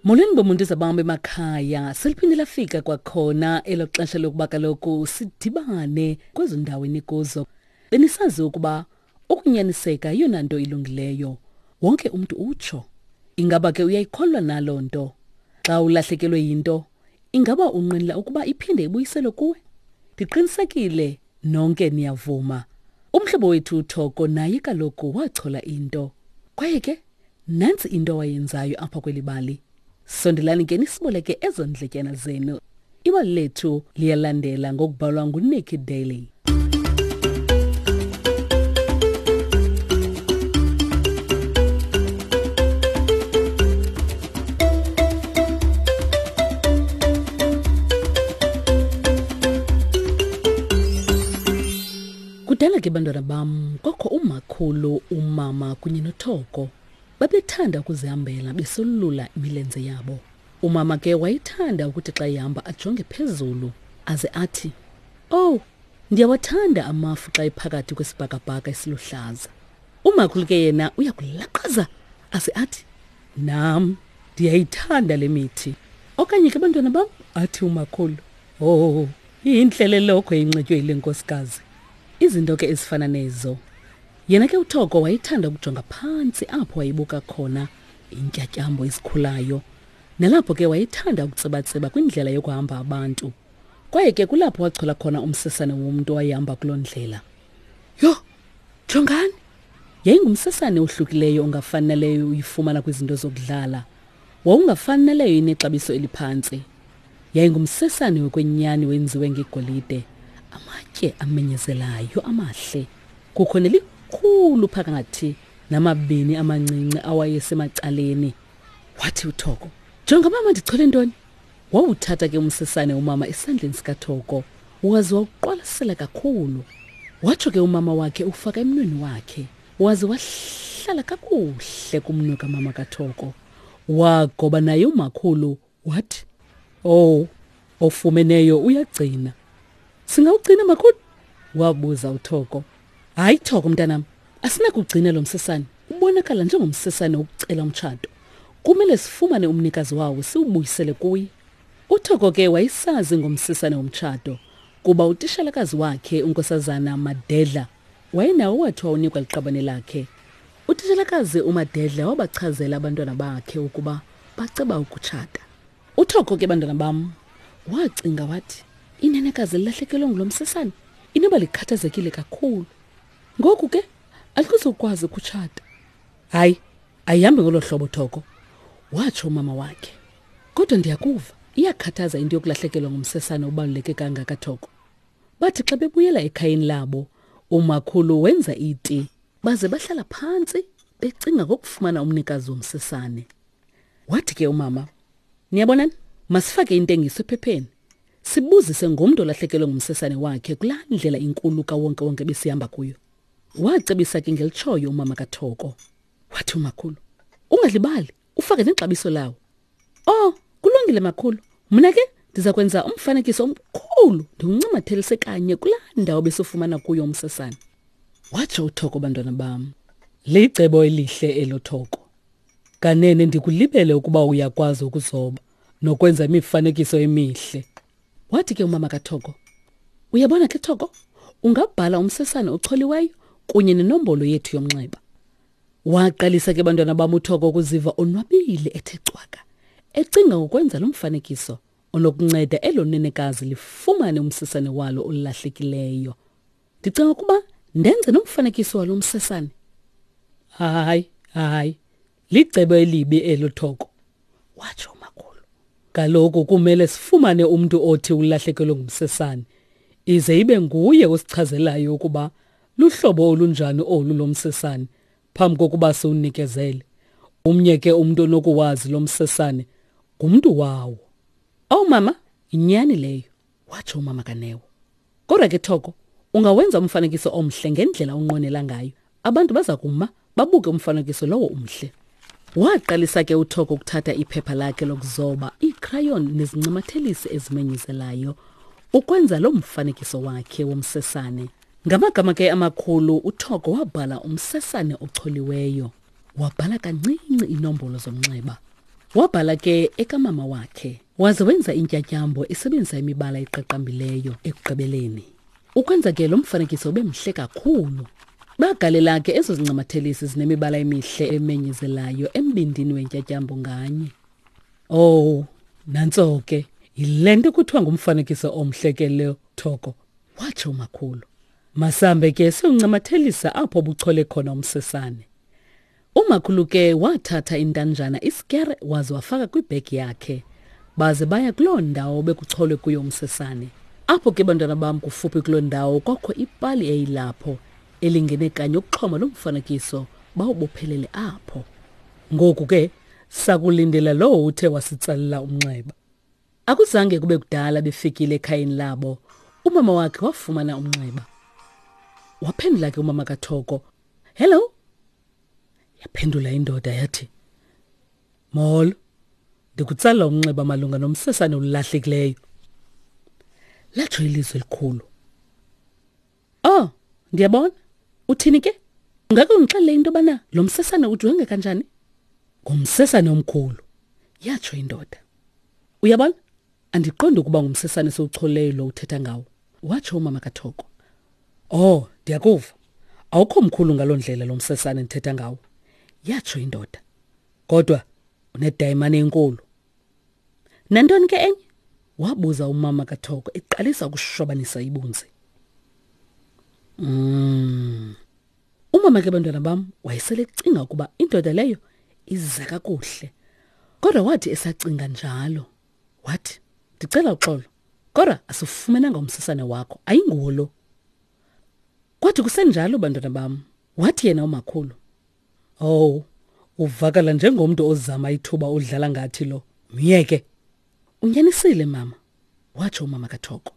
Molweni bomuntu zabam emakhaya, seliphinde lafika kwakhona elo xesha lokuba kaloku sidibane kwezo ndawo enikuzo. Benisazi ukuba ukunyaniseka yeyona nto ilungileyo. Wonke umntu utsho. Ingaba ke uyayikholwa naloo nto? Xa ulahlekelwe yinto, ingaba unqwenela ukuba iphinde ibuyiselwe kuwe? Ndiqinisekile nonke niyavuma. Umhlobo wethu uThoko naye kaloku wachola into. Kwaye ke Nantsi into awayenzayo apha kweli bali. Sondelani ke nisiboleke ezo ndletyana zenu. Ibali lethu liyalandela ngokubhalwa nguNikki Daly. Kudala ke bantwana bam kwakho umakhulu, umama kunye noThoko. Babethanda ukuzihambela besolula imilenze yabo. Umama ke wayethanda ukuthi xa ehamba ajonge phezulu aze athi, "Oh, ndiyawathanda amafu xa ephakathi kwesibhakabhaka esiluhlaza." Umakhulu ke yena uyakulaqaza aze athi, "Nam ndiyayithanda le mithi." Okanye ke bantwana bam, athi umakhulu, "Oh, intle le lokhwe inxitywe yile nkosikazi." Izinto ke ezifana nezo. Yena ke uThoko wayethanda ukujonga phantsi apho wayebuka khona iintyatyambo ezikhulayo. Nalapho ke wayethanda ukutsibatsiba kwindlela yokuhamba abantu. Kwaye ke kulapho wachola khona umsesane womntu owayehamba kuloo ndlela. Yho, jongani! Yayingumsesane ohlukileyo ongafani naleyo uyifumana kwizinto zokudlala. Wawungafani naleyo inexabiso eliphantsi. Yayingumsesane wokwenyani wenziwe ngegolide, amatye amenyezelayo amahle. Kukho nelikhulu phakathi namabini amancinci awayesemacaleni. Wathi uThoko, "Jonga mama ndichole ntoni?" Wawuthatha ke umsesane umama esandleni sikaThoko, waze wawuqwalasela kakhulu. Watsho ke umama wakhe ufaka emnweni wakhe, waze wahlala kakuhle kumnwe kamama kaThoko. Wagoba naye umakhulu wathi, "Oh, ofumeneyo uyagcina." Singawugcina makhulu? Wabuza uThoko. Hayi Thoko mntanam, asinakugcina lo msesane. Ubonakala njengomsesane wokucela umtshato. Kumele sifumane umnikazi wawo siwubuyisele kuye. UThoko ke wayesazi ngomsesane womtshato kuba utishalakazi wakhe uNkosazana Madedla wayenawo wathi wawunikwa liqabane lakhe. Utishalakazi uMadedla wabachazela abantwana bakhe ukuba baceba ukutshata. Uthoko ke bantwana bam wacinga wathi inenekazi lilahlekelwe ngulo msesane inoba likhathazekile kakhulu. Ngoku ke alikuzokwazi ukutshata. Hayi, ayihambi ngolo hlobo Thoko, watsho umama wakhe. Kodwa ndiyakuva, iyakhathaza into yokulahlekelwa ngumsesane obaluleke kangaka Thoko. Bathi xa bebuyela ekhayeni labo, umakhulu wenza iti baze bahlala phantsi becinga ngokufumana umnikazi womsesane. Wathi ke umama, niyabonani, masifake intengiso ephepheni. Sibuzise ngomntu olahlekelwe ngumsesane wakhe kulaa ndlela inkulu kawonke-wonke besihamba kuyo. Wacebisa ke ngelitshoyo umama kaThoko. Wathi umakhulu, ungalibali, ufake nexabiso lawo. Oh, kulungile makhulu. Mna ke ndiza kwenza umfanekiso omkhulu ndiwuncamathelise kanye kulaa ndawo besifumana kuyo umsesane. Watsho uThoko bantwana bam. Licebo elihle elo Thoko. Kanene ndikulibele ukuba uyakwazi ukuzoba nokwenza imifanekiso emihle. Wathi ke umama kaThoko, uyabona ke Thoko, ungabhala umsesane ocholiweyo kunye nenombolo yethu yomnxeba. Waqalisa ke bantwana bam uThoko ukuziva onwabile ethe cwaka, ecinga ngokwenza lo mfanekiso onokunceda elo nenekazi lifumane umsesane walo olahlekileyo. Ndicinga ukuba ndenze nomfanekiso walo msesane. Hayi, hayi, licebo elibi elo Thoko, watsho umakhulu. Kaloku kumele sifumane umntu othi ulahlekelwe ngumsesane, ize ibe nguye osichazelayo ukuba luhlobo olunjani olu lomsesane phambi kokuba siwunikezele. Umnye ke umntu onokuwazi lo msesane ngumntu wawo. Owu mama, yinyani leyo, watsho umama kaNeo. Kodwa ke Thoko, ungawenza umfanekiso omhle ngendlela onqwenela ngayo. Abantu baza kuma babuke umfanekiso lowo umhle. Waqalisa ke uThoko ukuthatha iphepha lakhe lokuzoba, iikhrayon nezincamathelisi ezimenyezelayo ukwenza lo mfanekiso wakhe womsesane. Ngamagama ke amakhulu uThoko wabhala umsesane ocholiweyo. Wabhala kancinci iinombolo zomnxeba. Wabhala ke ekamama wakhe, waze wenza intyatyambo esebenzisa imibala eqaqambileyo ekugqibeleni. Ukwenza ke lo mfanekiso ube mhle kakhulu. Bagalela ke ezo zincamathelisi zinemibala emihle emenyezelayo embindini wentyatyambo nganye. Oh, nantso ke. Yile nto kuthiwa ngumfanekiso omhle ke lo, Thoko, watsho umakhulu. Masambe ke siwuncamathelisa apho buchole khona umsesane. Umakhulu ke wathatha intanjana isikere waze wafaka kwibhegi yakhe. Baze baya kuloo ndawo bekucholwe kuyo umsesane. Apho ke bantwana bam kufuphi kuloo ndawo kwakho ipali eyilapho elingene kanye ukuxhoma lo mfanekiso bawubophelele apho. Ngoku ke sakulindela lowo uthe wasitsalela umnxeba. Akuzange kube kudala befikile ekhayeni labo. Umama wakhe wafumana umnxeba. Waphendula ke umama kaThoko. Hello. Yaphendula indoda yathi, Molo. Ndikutsala umnxeba malunga nomsesane olulahlekileyo. Latsho ilizwi elikhulu. Oh, ndiyabona. Uthini ke? Ungake undixelele into yobana lo msesane ujonge kanjani? Ngumsesane omkhulu, yatsho indoda. Uyabona? Andiqondi ukuba ngumsesane esiwucholeyo lo uthetha ngawo, watsho umama kaThoko. Oh, ndiyakuva. Awukho mkhulu ngaloo ndlela lo msesane ndithetha ngawo, yatsho indoda. Kodwa unedayimane enkulu. Nantoni ke enye? wabuza umama kaThoko eqalisa ukushobanisa ibunzi. Mm. Umama ke bantwana bam wayesele ecinga ukuba indoda leyo iza kakuhle. Kodwa wathi esacinga njalo, wathi, "Ndicela uxolo, kodwa asifumenanga umsesane wakho, ayinguwo lo." Kwathi kusenjalo bantwana bam, wathi yena umakhulu, "Oh, uvakala njengomntu ozama ithuba udlala ngathi lo. Myeke." Unyanisile mama, watsho umama kaThoko.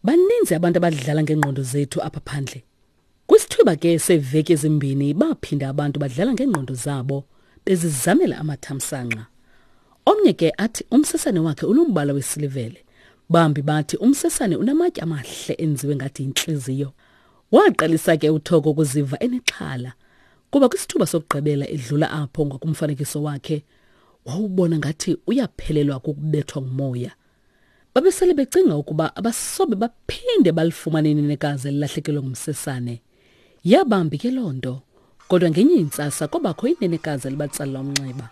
Baninzi abantu abadlala ngeengqondo zethu apha phandle. Kwisithuba ke seeveki ezimbini baphinda abantu badlala ngeengqondo zabo bezizamela amathamsanqa. Omnye ke athi umsesane wakhe unombala wesilivele. Bambi bathi umsesane unamatye amahle enziwe ngathi yintliziyo. Waqalisa ke uThoko ukuziva enexhala kuba kwisithuba sokugqibela edlula apho ngakumfanekiso wakhe wawubona ngathi uyaphelelwa kukubethwa ngumoya. Babesele becinga ukuba abasobe baphinde balifumane inenekazi elilahlekelwe ngumsesane. Yabambi ke loo nto. Kodwa ngenye intsasa kwabakho inenekazi elibatsalela umnxeba.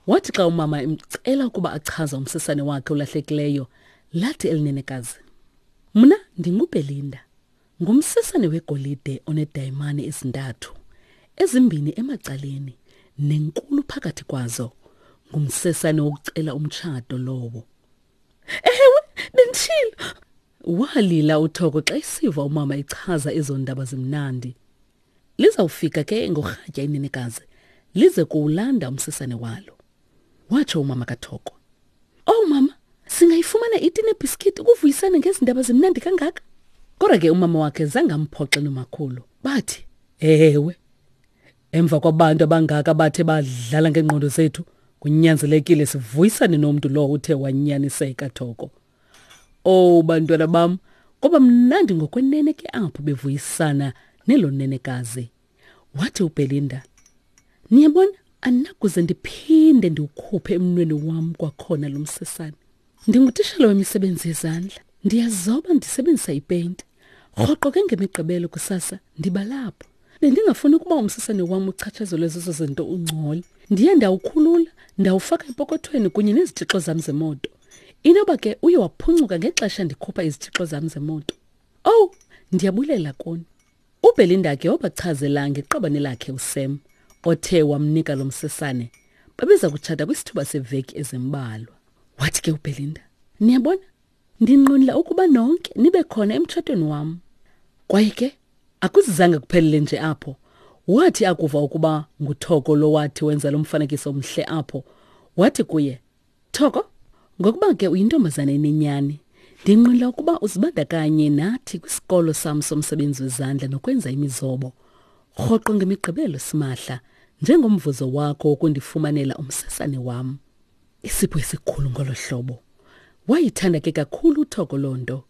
Wathi xa umama emcela ukuba achaze umsesane wakhe olahlekileyo, lathi elinenekazi, Mna ndinguBelinda. Ngumsesane wegolide onedayimani ezintathu, ezimbini emacaleni nenkulu phakathi kwazo. Ngumsesane wokucela umtshato lowo. Ewe, benditshilo. Walila uThoko xa esiva umama echaza ezo ndaba zimnandi. Lizawufika ke ngorhatya inenekazi lize kuwulanda umsesane walo. Watsho umama kaThoko. Oh mama, singayifumana iti nebhiskiti ukuvuyisana ngezi ndaba zimnandi kangaka? Kodwa ke umama wakhe zange amphoxe nomakhulu. Bathi, ewe. Emva kwabantu abangaka bathe badlala ngeengqondo zethu, kunyanzelekile sivuyisane nomntu lowo uthe wanyaniseka Thoko. Oh bantwana bam, kwaba mnandi ngokwenene ke apho bevuyisana nelo nenekazi. Wathi uBelinda, Niyabona, andinakuze ndiphinde ndiwukhuphe emnweni wam kwakhona lo msesane. Ndingutishala wemisebenzi yezandla. Ndiyazoba ndisebenzisa ipeyinti. Rhoqo ke ngemigqibelo kusasa ndiba lapho. Bendingafuni ukuba umsesane wam uchatshazelwe zezo zinto ungcole. Ndiye ndawukhulula, ndawufaka epokothweni kunye nezitshixo zam zemoto. Inoba ke uye waphuncuka ngexesha ndikhupha izitshixo zam zemoto. Owu, ndiyabulela kuni. UBelinda ke wabachazela ngeqabane lakhe uSam othe wamnika lo msesane. Babeza kutshata kwisithuba seveki ezimbalwa. Wathi ke uBelinda, "Niyabona, ndinqwenela ukuba nonke nibe khona emtshatweni wam." Kwaye ke akuzizange kuphelele nje apho. Wathi akuva ukuba nguThoko lo wathi wenza lo mfanekiso omhle apho, wathi kuye, Thoko, ngokuba ke uyintombazana enenyani, ndinqwenela ukuba uzibandakanye nathi kwisikolo sam somsebenzi wezandla nokwenza imizobo. Rhoqo ngemigqibelo simahla, njengomvuzo wakho wokundifumanela umsesane wam. Isipho esikhulu ngolo hlobo. Wayithanda ke kakhulu uThoko loo nto.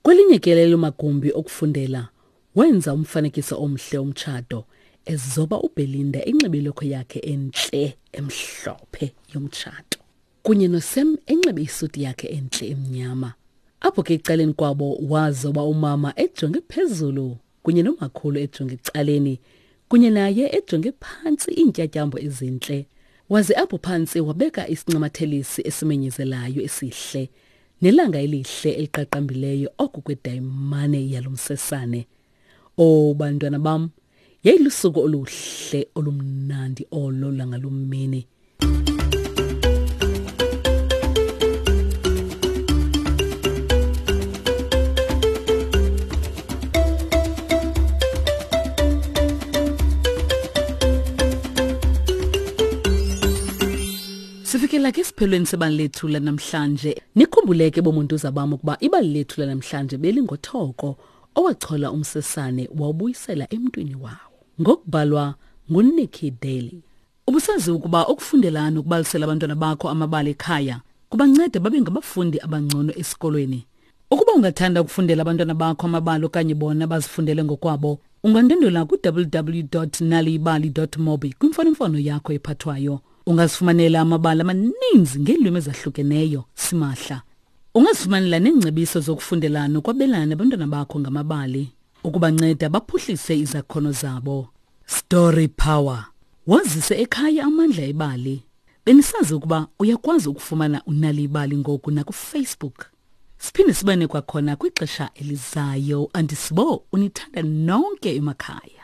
Kwelinye ke lelo magumbi okufundela, wenza umfanekiso omhle omtshato, ezoba uBelinda enxibe ilokhwe yakhe entle emhlophe yomtshato kunye noSam enxibe isuti yakhe entle emnyama. Apho ke ecaleni kwabo wazoba umama ejonge phezulu kunye nomakhulu ejonge ecaleni kunye naye ejonge phantsi iintyatyambo ezintle. Waze apho phantsi wabeka isincamathelisi esimenyezelayo esihle nelanga elihle eliqaqambileyo oku kwedayimane yalo msesane. O bantwana bam, yayilusuku oluhle olumnandi olo langaloo mini. Sifikela ke esiphelweni sebali lethu lanamhlanje. Nikhumbuleke bomuntuza bam ukuba ibali lethu lanamhlanje belingothoko owachola umsesane wawubuyisela emntwini wawo. Ngokubhalwa nguNikki Daly. Ubusazi ukuba ukufundela nokubalisela abantwana bakho amabali ekhaya kubanceda babe ngabafundi abangcono esikolweni. Ukuba ungathanda ukufundela abantwana bakho amabali okanye bona bazifundele ngokwabo, ungandwendwela ku-www.naliyibali.mobi kwimfonomfono yakho ephathwayo. Ungazifumanela amabali amaninzi ngeelwimi ezahlukeneyo simahla. Ungazifumanela neengcebiso zokufundela nokwabelana nabantwana bakho ngamabali ukubanceda baphuhlise izakhono zabo. Story Power. Wazise ekhaya amandla ebali. Benisazi ukuba uyakwazi ukufumana unali ibali ngoku nakuFacebook. Siphinde sibane kwakhona kwixesha elizayo. Andisibo unithanda nonke emakhaya.